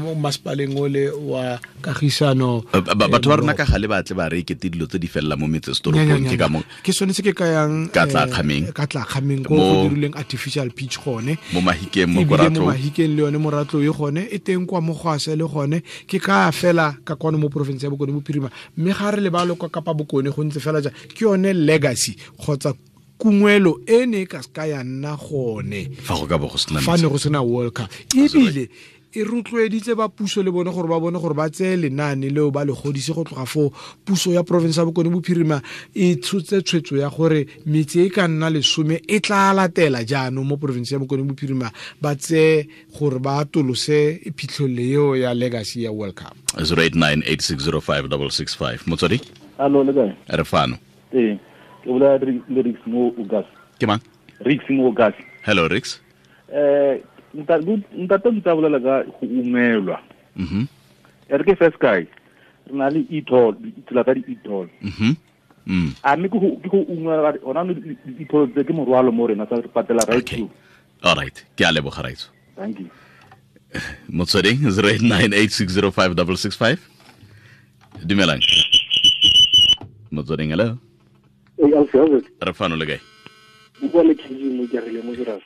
mo masepaleng ole wa Kagisano. Batho ba rona ka gale ba tle ba re kete dilo tse di felela mo metsesetoropong, ke ka mo ke sone se ke kayang ka tla kgameng, ka tla kgameng ko go dirileng artificial pitch gone mo Mahikeng, mo Koratlo, mo Mahikeng le yone Moratlo e gone e teng kwa Mogwase le gone. Ke ka fela ka kwano mo province ya Bokone Bophirima, mme ga re lebalo kwa Kapa Bokone go ntse fela ja ke yone legacy kgotsa kungwelo e ne ka ska ya nna gone fa go ka bo go sena fa ne go sena World Cup. Ebile e rotloeditse ba puso le bone gore ba bone gore ba tseye lenaane leo ba le godise go tloga foo. Puso ya province ya Bokone Bophirima e tshotse tshwetso ya gore metse e ka nna 10 e tla latela jaanong mo province ya Bokone Bophirima, ba tseye gore ba atolose phitlhelelo eo ya legacy ya World Cup. 0898605665 Motswedi. Allo, le kae? Re fano. Ee, ke bolela le Rix mo Ugas. Ke mang? Rix mo Ugas. Hello Rix. Ntate ntse bolela ka go ungwelwa. E re ke first guy, re na le e-toll, ditsela tsa di-e-toll. A mme ke go ungwelwa ona di-e-toll tse ke morwalo mo rena sa re patela right through. All right, ke a leboga raitso. Thank you. Motsweding 0898605665. Dumelang. Motsweding, hello. Re fano le kae? Bua le KG mo ke rile mo Jirasa.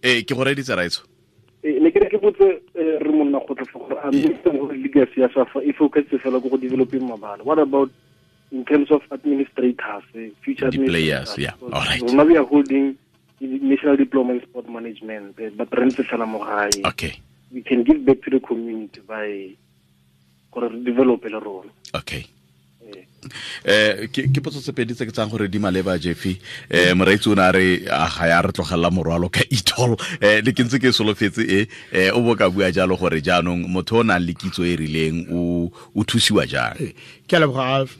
Ke go reditse raitso. Ne ke re ke botse re monna go tla gore a mme gore legacy ya SAFA e focus fela go developing mabala. What about in terms of administrators, future the players? Yeah, all right. Now we are holding National Diploma in Sport Management, but re ntse fela mo gae. Okay. We can give back to the community by gore re develop le rona. Okay. Ke potso tse pedi tse ke tsang gore di maleba Jeffy. Moreetsi o ne a re ga ya re tlogela morwalo ka e-toll. Le ke ntse ke solofetse o bo ka bua jalo gore jaanong motho o nang le kitso e rileng o thusiwa jang. Ke a leboga Alf.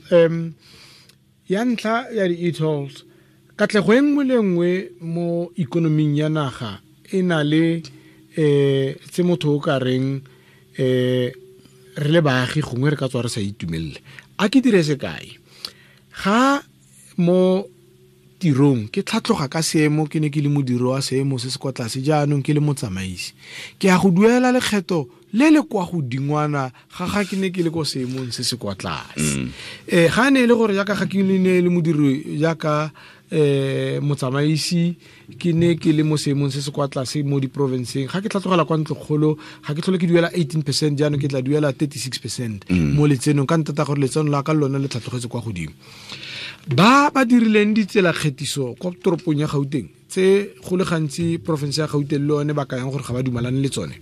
Ya ntlha ya di-e-tolls, katlego e nngwe le nngwe mo ikonoming ya naga e na le tse motho o ka reng re le baagi gongwe re ka tswa re sa itumelele. A ke dire sekai, ga mo tirong ke tlhatloga ka seemo, ke ne ke le modiri wa seemo se se kwa tlase, jaanong ke le motsamaisi, ke ya go duela lekgetho le le kwa godingwana ga ke ne ke le ko seemong se se kwa tlase. Ga ne e le gore jaaka ga ke ne le modiri jaaka motsamaisi, ke ne ke le mo seemong se se kwa tlase mo diprovinceng, ga ke tlhatlogela kwa ntlokgolo ga ke tlhole ke duela 18%, jaanong ke tla duela 36% mo letsenong, ka ntata gore letseno la ka lone le tlhatlogetse kwa godimo. Ba ba dirileng ditsela kgethiso kwa toropong ya Gauteng tse go le gantsi province ya Gauteng le one ba kayang gore ga ba dumalane le tsone,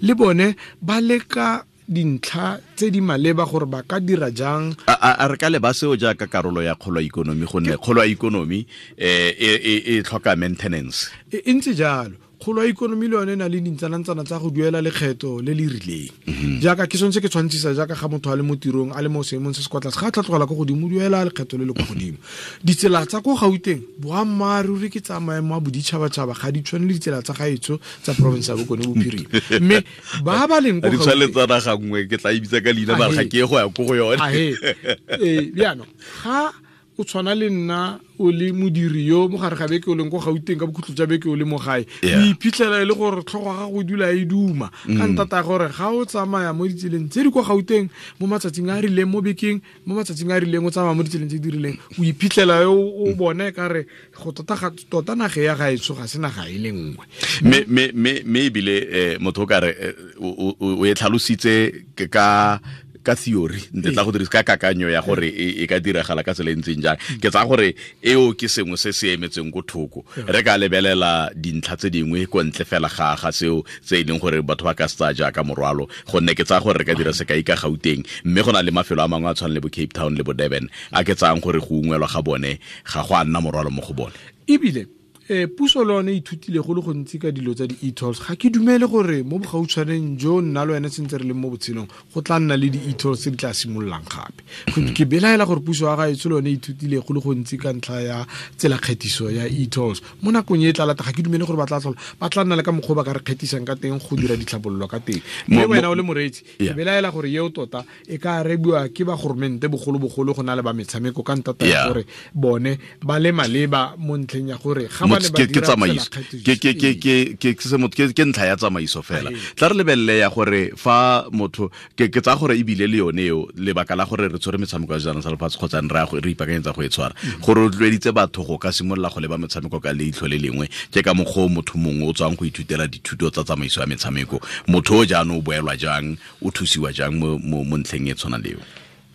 le bone ba leka dintlha tse di maleba gore ba ka dira jang. A re ka leba seo jaaka karolo ya kgolo ya ikonomi, gonne kgolo ya ikonomi e tlhoka maintenance. E ntse jalo, kgolo ya ikonomi le yone e na le dintsanantsana tsa go duela lekgetho le le rileng. Jaaka ke sone se ke tshwantshisa jaaka ga motho a le mo tirong a le mo seemong se se kwa tlase, ga a tlhatlogela ko godimo o duela lekgetho le le kwa godimo. Ditsela tsa ko Gauteng boammaaruri ke tsa maemo a boditšhabatšhaba, ga di tshwane le ditsela tsa gaetsho tsa province ya Bokone Bophirima. Mme ba ba leng ko Gauteng di tshwane le tsa naga nngwe, ke tla e bitsa ka leina mara ga ke ye go ya ko go yone. Jaanong ga o tshwana le nna o le modiri yo mo gare ga beke o leng ko Gauteng, ka bokhutlo jwa beke o le mo gae, o iphitlhela e le gore tlhogo ga go dula e duma ka ntata gore ga o tsamaya mo ditseleng tse di kwa Gauteng mo matsatsing a rileng, mo bekeng mo matsatsing a rileng, o tsamaya mo ditseleng tse di rileng, o iphitlhela o bone ka re go tota naga ya gaetsho ga se naga e le nngwe. Mme ebile motho o ka re o e tlhalositse ka theory, ntle tla go dirisa ka kakanyo ya gore e ka diragala ka tsela e ntseng jang. Ke tsaya gore eo ke sengwe se se emetseng ko thoko. Re ka lebelela dintlha tse dingwe ko ntle fela ga seo tse e leng gore batho ba ka se tsaya jaaka morwalo, gonne ke tsaya gore re ka dira sekai ka Gauteng, mme go na le mafelo a mangwe a tshwana le bo Cape Town le bo Durban a ke tsayang gore go ungwelwa ga bone ga go a nna morwalo mo go bone. Ebile puso le yone ithutile go le gontsi ka dilo tsa di-e-tolls. Ga ke dumele gore mo bogautshwaneng jo nna le wena sentse re leng mo botshelong go tla nna le di-e-tolls tse di tla simololang gape. Ke belaela gore puso ya gaetsho le yone ithutile go le gontsi ka ntlha ya tsela kgethiso ya e-tolls. Mo nakong e tla lata ga ke dumele gore ba tla tlhola ba tla nna le ka mokgwa ba ka re kgethisang ka teng go dira ditlhabololo ka teng. Mme wena o le moreetsi, ke belaela gore eo tota e ka arebiwa ke ba goromente bogolobogolo go na le ba metshameko, ka ntata ya gore bone ba le maleba mo ntlheng ya gore ga ba ke tsamaiso, ke ntlha ya tsamaiso fela. Tla re lebelele ya gore fa motho ke tsaya gore ebile le yone eo lebaka la gore re tshwere metshameko ya sejana sa lefatshe kgotsa re ipaakanyetsa go e tshwara, gore rotloeditse batho go ka simolola go leba metshameko ka leitlho le lengwe, ke ka mokgwa o motho mongwe o tswang go ithutela dithuto tsa tsamaiso ya metshameko, motho o jaanong o boelwa jang, o thusiwa jang mo ntlheng e tshwana leo.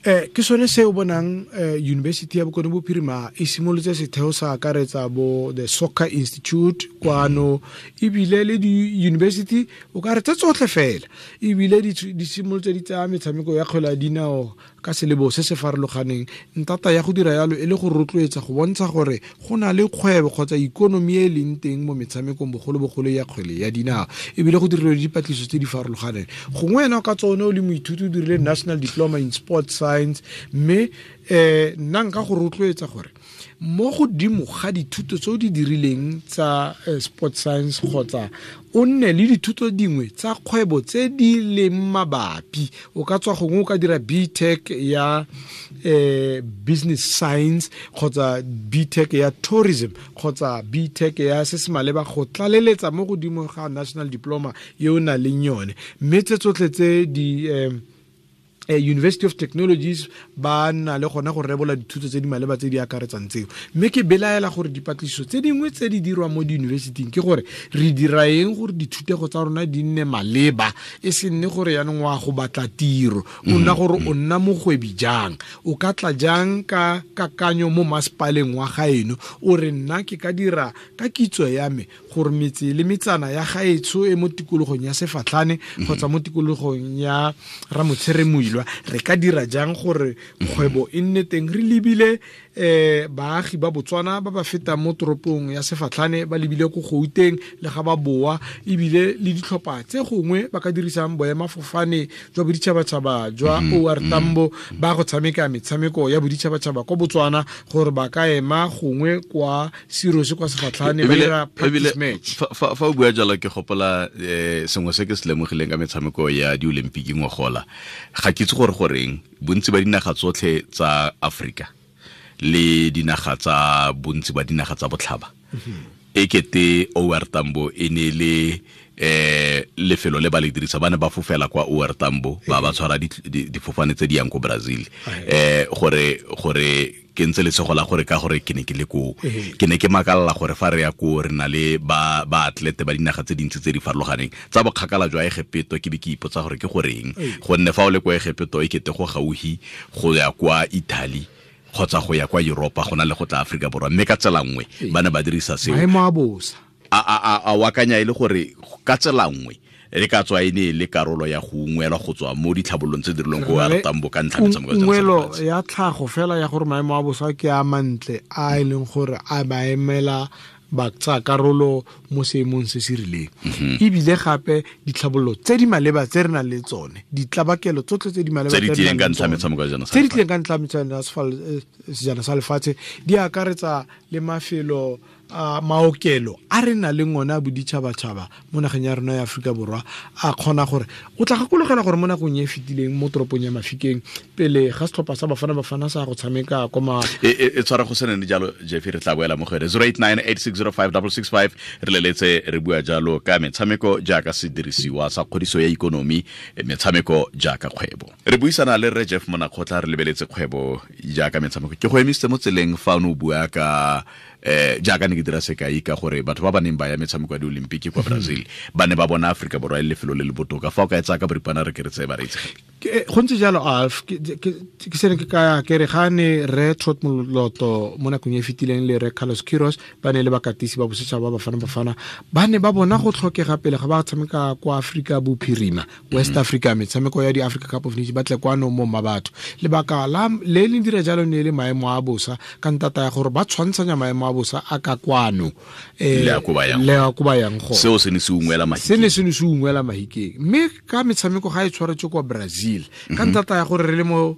Ke sone se o bonang University ya Bokone Bophirima e simolotse setheo sa akaretsa bo the Soccer Institute kwano, ebile le di-university o ka re tse tsotlhe fela, ebile di simolotse di tsaya metshameko ya kgwele ya dinao ka selebo se se farologaneng. Ntata ya go dira yalo e le go rotloetsa go bontsha gore go na le kgwebo kgotsa ikonomi e leng teng mo metshamekong, bogolobogolo ya kgwele ya dinao, ebile go dirilwe dipatlisiso tse di farologaneng. Gongwe wena ka tsone o le moithuti o dirile National Diploma in Sports Science, mme nna nka go rotloetsa gore mo godimo ga dithuto tse o di dirileng tsa sport science kgotsa o nne le dithuto dingwe tsa kgwebo tse di leng mabapi. O ka tswa gongwe o ka dira BTech ya business science kgotsa BTech ya tourism kgotsa BTech ya se se maleba go tlaleletsa mo godimo ga national diploma e o nang le yone. Mme tse tsotlhe tse di University of Technologies ba na le gona go rebola dithuto tse di maleba tse di akaretsang tseo. Mme ke belaela gore dipatlisiso tse dingwe tse di dirwang mo di-universityng ke gore re dira eng gore dithutego tsa rona di nne maleba, e se nne gore yaanong wa go batla tiro, o nna gore o nna mogwebi jang, o ka tla jang ka kakanyo mo masepaleng wa gaeno, o re nna ke ka dira ka kitso ya me gore metse le metsana ya gaetsho e mo tikologong ya Sefatlhane kgotsa mo tikologong ya Ramotshere Moilwa, re ka dira jang gore kgwebo e nne teng re lebile baagi ba Botswana ba ba fetang mo toropong ya Sefatlhane ba lebile ko Gauteng le ga ba boa, ebile le ditlhopha tse gongwe ba ka dirisang boemafofane jwa boditšhabatšhaba jwa OR Tambo ba go tshameka metshameko ya boditšhabatšhaba kwa Botswana, gore ba ka ema gongwe kwa Sirose kwa Sefatlhane ba dira practice match. Fa o bua jalo ke gopola sengwe se ke se lemogileng ka metshameko ya di-Olympic ngogola. Ga ke itse gore goreng bontsi ba dinaga tsotlhe tsa Afrika le dinaga tsa bontsi ba dinaga tsa botlhaba e kete OR Tambo e ne le lefelo le ba le dirisa, ba ne ba fofela kwa OR Tambo ba ba tshwara difofane tse di yang ko Brazil, gore ke ntse lesego la gore ka gore ke ne ke le koo, ke ne ke makalla gore fa re ya koo re na le ba atlete ba dinaga tse dintsi tse di farologaneng tsa bokgakala jwa Egepeto, ke be ke ipotsa gore ke goreng, gonne fa o le kwa Egepeto e kete go gaufi go ya kwa Italy kgotsa go ya kwa Europa go na le go tla Afrika Borwa, mme ka tsela nngwe ba ne ba dirisa seo. Maemo a bosa a wakanya e le gore ka tsela nngwe re ka tswa e ne le karolo ya go ungwelwa go tswa mo ditlhabololong tse dirilweng ko OR Tambo ka ntlha metshameko ya ungwelo ya tlhago fela ya gore maemo a bosa ke a mantle a e leng gore a ba emela ba tsaya karolo mo seemong se se rileng. Ebile gape ditlhabololo tse di maleba tse re nang le tsone, ditlabakelo tsotlhe tse di maleba tse di tlileng ka ntlha metshameko ya sejana sa lefatshe di akaretsa le mafelo a maokelo a re nang le ngone a boditšhabatšhaba mo nageng ya rona ya Aforika Borwa, a kgona gore o tla gakologela gore mo nakong e e fetileng mo toropong ya Mafikeng pele ga setlhopha sa Bafana Bafana sa go tshameka kwa e tshwara go se nene jalo. Jeffrey, re tla boela mo go ene 0898605665 re leletse re bua jalo ka metshameko jaaka sedirisiwa sa kgodiso ya ikonomi, metshameko jaaka kgwebo. Re buisana le Rre Jeff Monakgotla re lebeletse kgwebo jaaka metshameko. Ke go emisitse mo tseleng fa o ne o bua ka jaaka ne ke dira sekai ka gore batho ba ba neng ba ya metshameko ya di-Olympic kwa Brazil ba ne ba bona Aforika Borwa e le lefelo le le botoka. Fa o ka e tsaya ka boripana re ke re tseye bareetsi. Go ntse jalo Alf, ke sene ke kaya ke re ga ne Rre Trot Moloto mo nakong e fetileng le Rre Carlos Queiroz ba ne le bakatisi ba bosetšhaba ba Bafana Bafana ba ne ba bona go tlhokega pele ga ba tshameka kwa Afrika Bophirima, West Africa, metshameko ya di-Africa Cup of Nations ba tle kwano mo Mmabatho. Lebaka la le le dira jalo ne le maemo a bosa ka ntata ya gore ba tshwantshanya maemo a bosa a ka kwano le a ko ba yang go. Seo se ne se ungwela mahikeng. Mme ka metshameko ga e tshwaretswe kwa Brazil ka ntata ya gore re le mo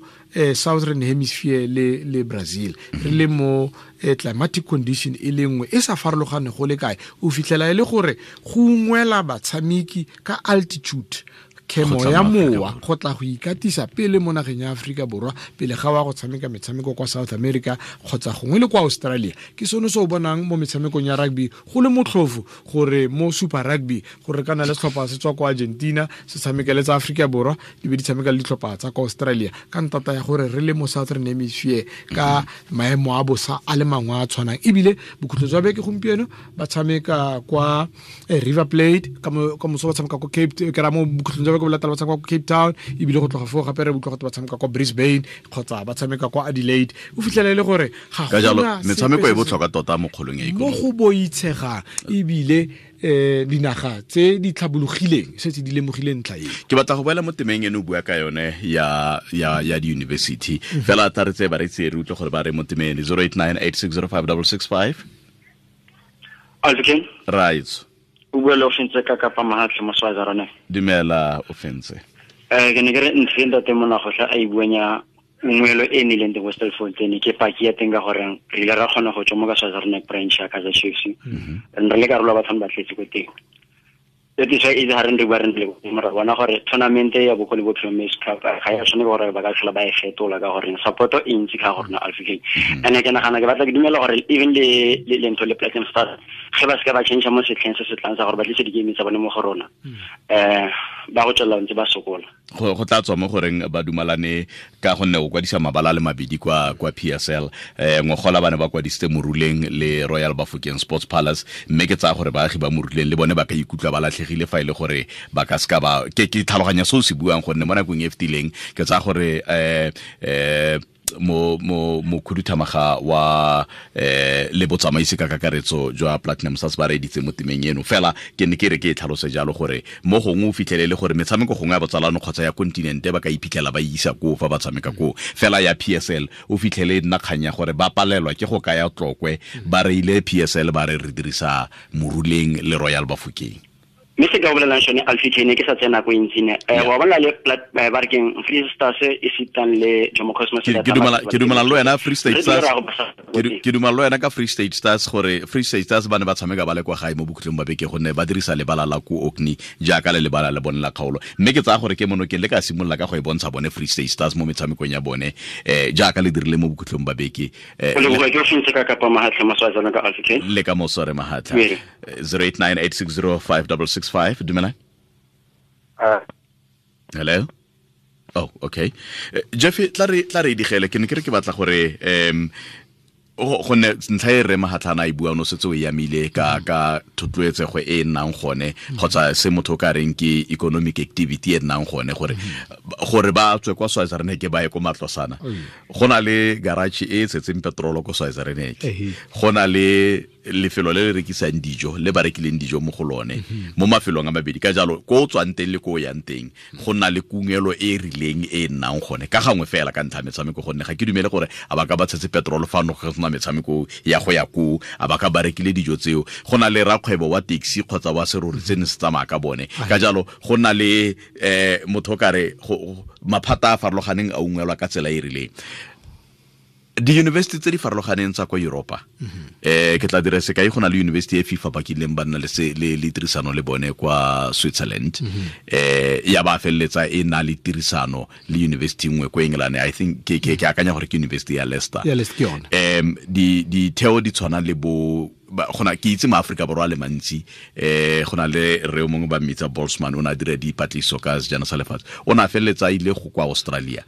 Southern Hemisphere le Brazil re le mo climatic condition e le nngwe e sa farologane go le kae, o fitlhela e le gore go ungwela batshameki ka altitude, khemo ya mowa go tla go ikatisa pele mo nageng ya Aforika Borwa pele ga wa go tshameka metshameko kwa South America kgotsa gongwe le kwa Australia. Ke sone se o bonang mo metshamekong ya rugby go le motlhofo gore mo Super Rugby gore kana le setlhopha se tswa kwa Argentina se tshamekele tsa Aforika Borwa di be di tshameka le ditlhopha tsa kwa Australia ka ntata ya gore re le mo Southern Hemisphere ka maemo a bosa a le mangwe a tshwanang. Ebile bokhutlo jwa beke gompieno ba tshameka kwa River Plate, ka moso ba tshameka kwa Cape, ke ra mo bokhutlong jwa beke ba latela ba tshameka kwa Cape Town, ebile go tloga foo gape re utlwa gote ba tshameka kwa Brisbane kgotsa ba tshameka kwa Adelaide. O fitlhela e le gore ga ka jalo metshameko e botlhokwa tota mo kgolong ya ikonomi, mo go boitshegang, ebile dinaga tse di tlhabologileng setse di lemogile ntlha e. Ke batla go boela mo temeng eno o bua ka yone ya di-university fela tla re tseye bareetsi re utlwe gore ba re mo temeng 0898605665. Alvin right, o bua le Ofentse ka Kapa Mahatlhe mo Swaziland. Dumela Ofentse. Ke ne ke re ntho e ntate Monakgotla a e buang ya ungwelo e nnileng teng ko Stilfontein ke paki ya teng ka gore re ile ra kgona go tswa mo ka Swaziland branch ya Kaizer Chiefs. Re le karolo ya batho ba tletse ko teng. That is why e ha re bua re le mora bona gore tournament ya Bokone Bophirima Cup ga ya tshwane gore ba ka tlhola ba e fetola ka gore support e ntsi ka gore na Africa. And ke nagana ke batla ke dumela gore even le le ntho le Platinum Stars ge ba se ka ba change mo setlheng se se tlang sa gore ba tlise di-game tsa bone mo go rona. ba go tswelela ntse ba sokola. Go tla tswa mo goreng ba dumalane ka gonne o kwadisa mabala le mabedi kwa PSL, ngogola bane ba kwadisitse Moruleng le Royal Bafokeng Sports Palace, mme ke tsaya gore baagi ba Moruleng le bone ba ka ikutlwa ba latlhegile fa ile gore ba ka ska ba ke tlhaloganya se o se buang, gonne mo nakong e fetileng ke tsaya gore mo mokhuduthamaga wa le botsamaisi ka kakaretso jwa Platinum Stars ba reditse mo temeng eno. Fela ke ne ke re ke e tlhalose jalo gore mo gongwe o fitlhelele gore metshameko gongwe ya botsalano kgotsa ya kontinente ba ka iphitlhela ba isa koo fa ba tshameka koo, fela ya PSL o fitlhele nna kganya gore ba palelwa ke go kaya Tlokwe, ba reile PSL ba re re dirisa Moruleng le Royal Bafokeng. Mme se ka bolelang sone Alfie ke sa tsena ko ntsi ne wa bona le ba re keng Free Stars e sitang le Jomo Cosmos. Ke dumela le wena Free State Stars, ke dumela le wena ka Free State Stars gore Free State Stars ba ne ba tshameka ba le kwa gae mo bokhutlong ba beke, gonne ba dirisa lebala la ko Orkney jaaka le lebala le bone la kgaolo, mme ke tsaya gore ke Monokeng le ka simolola ka go e bontsha bone Free State Stars mo metshamekong ya bone jaaka le dirile mo bokhutlong ba beke. Le ka mosore Mahatlha. 0898605665. Dumela. Hello. Oh, okay. Jeffy, tla re digele ke ne ke re ke batla gore gonne ntlha e re Mahatlhana e bua no setse o yamile ka thotloetsego e nnang gone kgotsa se motho o ka reng ke economic activity e nnang gone, gore ba tswe kwa Swaziland ba ye ko Matlosana. Go na le garage e tshetseng petrolo ko Swaziland, go na le lefelo le le rekisang dijo le ba rekileng dijo mo go lone mo mafelong a mabedi, ka jalo ko o tswang teng le ko o yang teng go nna le kungelo e rileng e nnang gone ka gangwe fela ka ntlha metshameko, gonne ga ke dumele gore a ba ka ba tshetse petrolo fano go sena metshameko ya go ya koo, a ba ka ba rekile dijo tseo. Go na le rakgwebo wa taxi kgotsa wa serori se ne se tsamaya ka bone, ka jalo go nna le motho o kare maphata a farologaneng a ungwelwa ka tsela e rileng. Di-university tse di farologaneng tsa kwa Europa, ke tla dira sekai, go na le university e FIFA ba kileng ba nna le tirisano le bone kwa Switzerland, ya ba feleletsa e na le tirisano le university nngwe kwa England, I think ke akanya gore ke university ya Leicester. Ditheo di tshwana le bo gona ke itse ma Afrika Borwa le mantsi, gona le re o mongwe ba mmitsa Boltzmann, o na dira dipatlisiso ka sejana sa lefatshe, o na feleletsa ile go kwa Australia.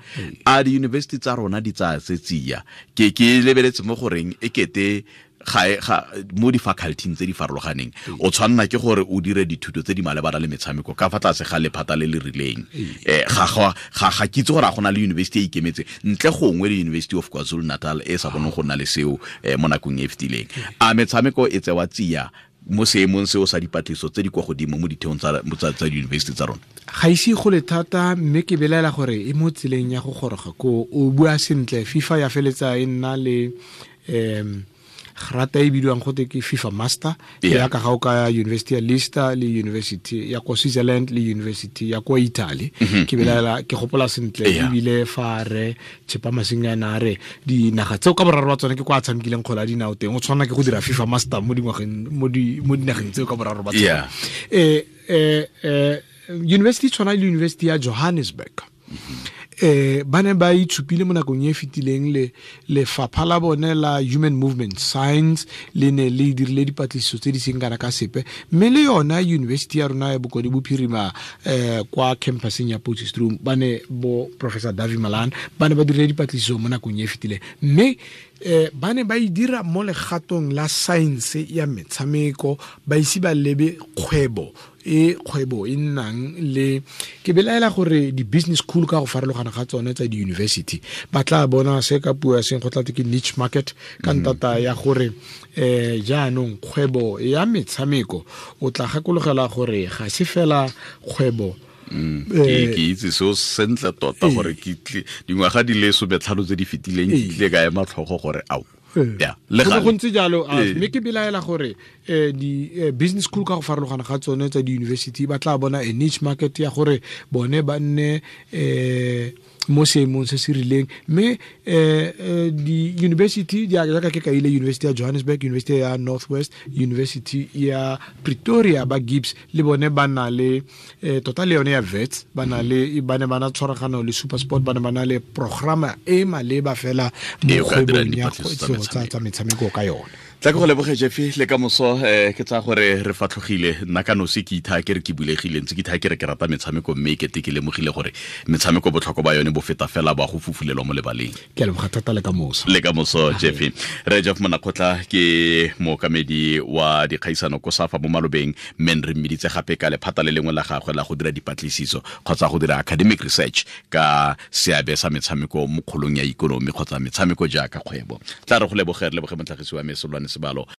A di-university tsa rona di tsaya se tsia, ke lebeletse mo goreng e kete ga mo di-faculty tse di farologaneng o tshwanna ke gore o dire dithuto tse di malebana le metshameko ka fa tlase ga lephata le le rileng. Ga ke itse gore a gona le university e ikemetse ntle gongwe le University of KwaZulu Natal e sa boneng go nna le seo mo nakong e fetileng. A metshameko e tsewa tsia mo seemong seo sa dipatlisiso tse di kwa godimo mo ditheong tsa di-university tsa rona? Ga ise go le thata, mme ke belaela gore e mo tseleng ya go goroga ko. O bua sentle, FIFA ya feletsa e nna le grata e bidiwang gote ke FIFA Master, ya ka ga o ka University ya Leicester le University ya kwa Switzerland le University ya kwa Italy. Ke belaela, ke gopola sentle ebile fa re Tshepa Masingana a re dinaga tseo ka boraro ba tsone ke kwa a tshamekileng kgwele ya dinao teng, o tshwanela ke go dira FIFA Master mo dingwageng mo dinageng tseo ka boraro ba tsone. University tshwana le University ya Johannesburg, ba ne ba itshupile mo nakong e fetileng le lefapha la bone la Human Movement Science le ne le dirile dipatlisiso tse di seng kana ka sepe, mme le yona university ya rona ya Bokone Bophirima kwa campuseng ya Potchefstroom ba ne bo Professor Davi Malan ba ne ba dirile dipatlisiso mo nakong e fetileng, mme ba ne ba e dira mo legatong la science ya metshameko, ba ise ba lebe kgwebo e nnang le. Ke belaela gore di-business school ka go farologana ga tsone tsa di-university ba tla bona se ka puo ya seng go tla ke niche market ka ntata ya gore jaanong kgwebo ya metshameko o tla gakologela gore ga se fela kgwebo. Ke itse seo sentle tota gore ke dingwaga di le 15 tse di fetileng ke tlile ka ema tlhogo gore ao ya le go ntse jalo. Mme ke belaela gore di business school ka go farologana ga tsone tsa di-university ba tla bona a niche market ya gore bone ba nne mo seemong se se rileng, mme di-university jaaka ke kaile University ya Johannesburg, University ya Northwest, University ya Pretoria ba Gibbs le bone ba na le tota le yone ya Wits ba na le ba ne ba na tshwaragano le SuperSport, ba ne ba na le programa e maleba fela mo kgwebong ya tsa metshameko ka yone. Tla ke go leboge, Jeffy, le ka moso. Ke tsaya gore re fatlhogile. Nna ka nosi ke ithaa ke re ke bulegile, ntse ke ithaa ke re ke rata metshameko, mme kete ke lemogile gore metshameko botlhokwa ba yone bo feta fela ba go fufulelwa mo lebaleng. Ke a leboga thata, le ka moso. Le ka moso, Jeffy. Re Jeff Monakgotla ke mookamedi wa dikgaisano ko SAFA mo malobeng, mme re mmeditse gape ka lephata le lengwe la gagwe la go dira dipatlisiso kgotsa go dira academic research ka seabe sa metshameko mo kgolong ya ikonomi kgotsa metshameko jaaka kgwebo. Tla re go leboge, re leboge motlhagisi wa me, Solwane Sebalo.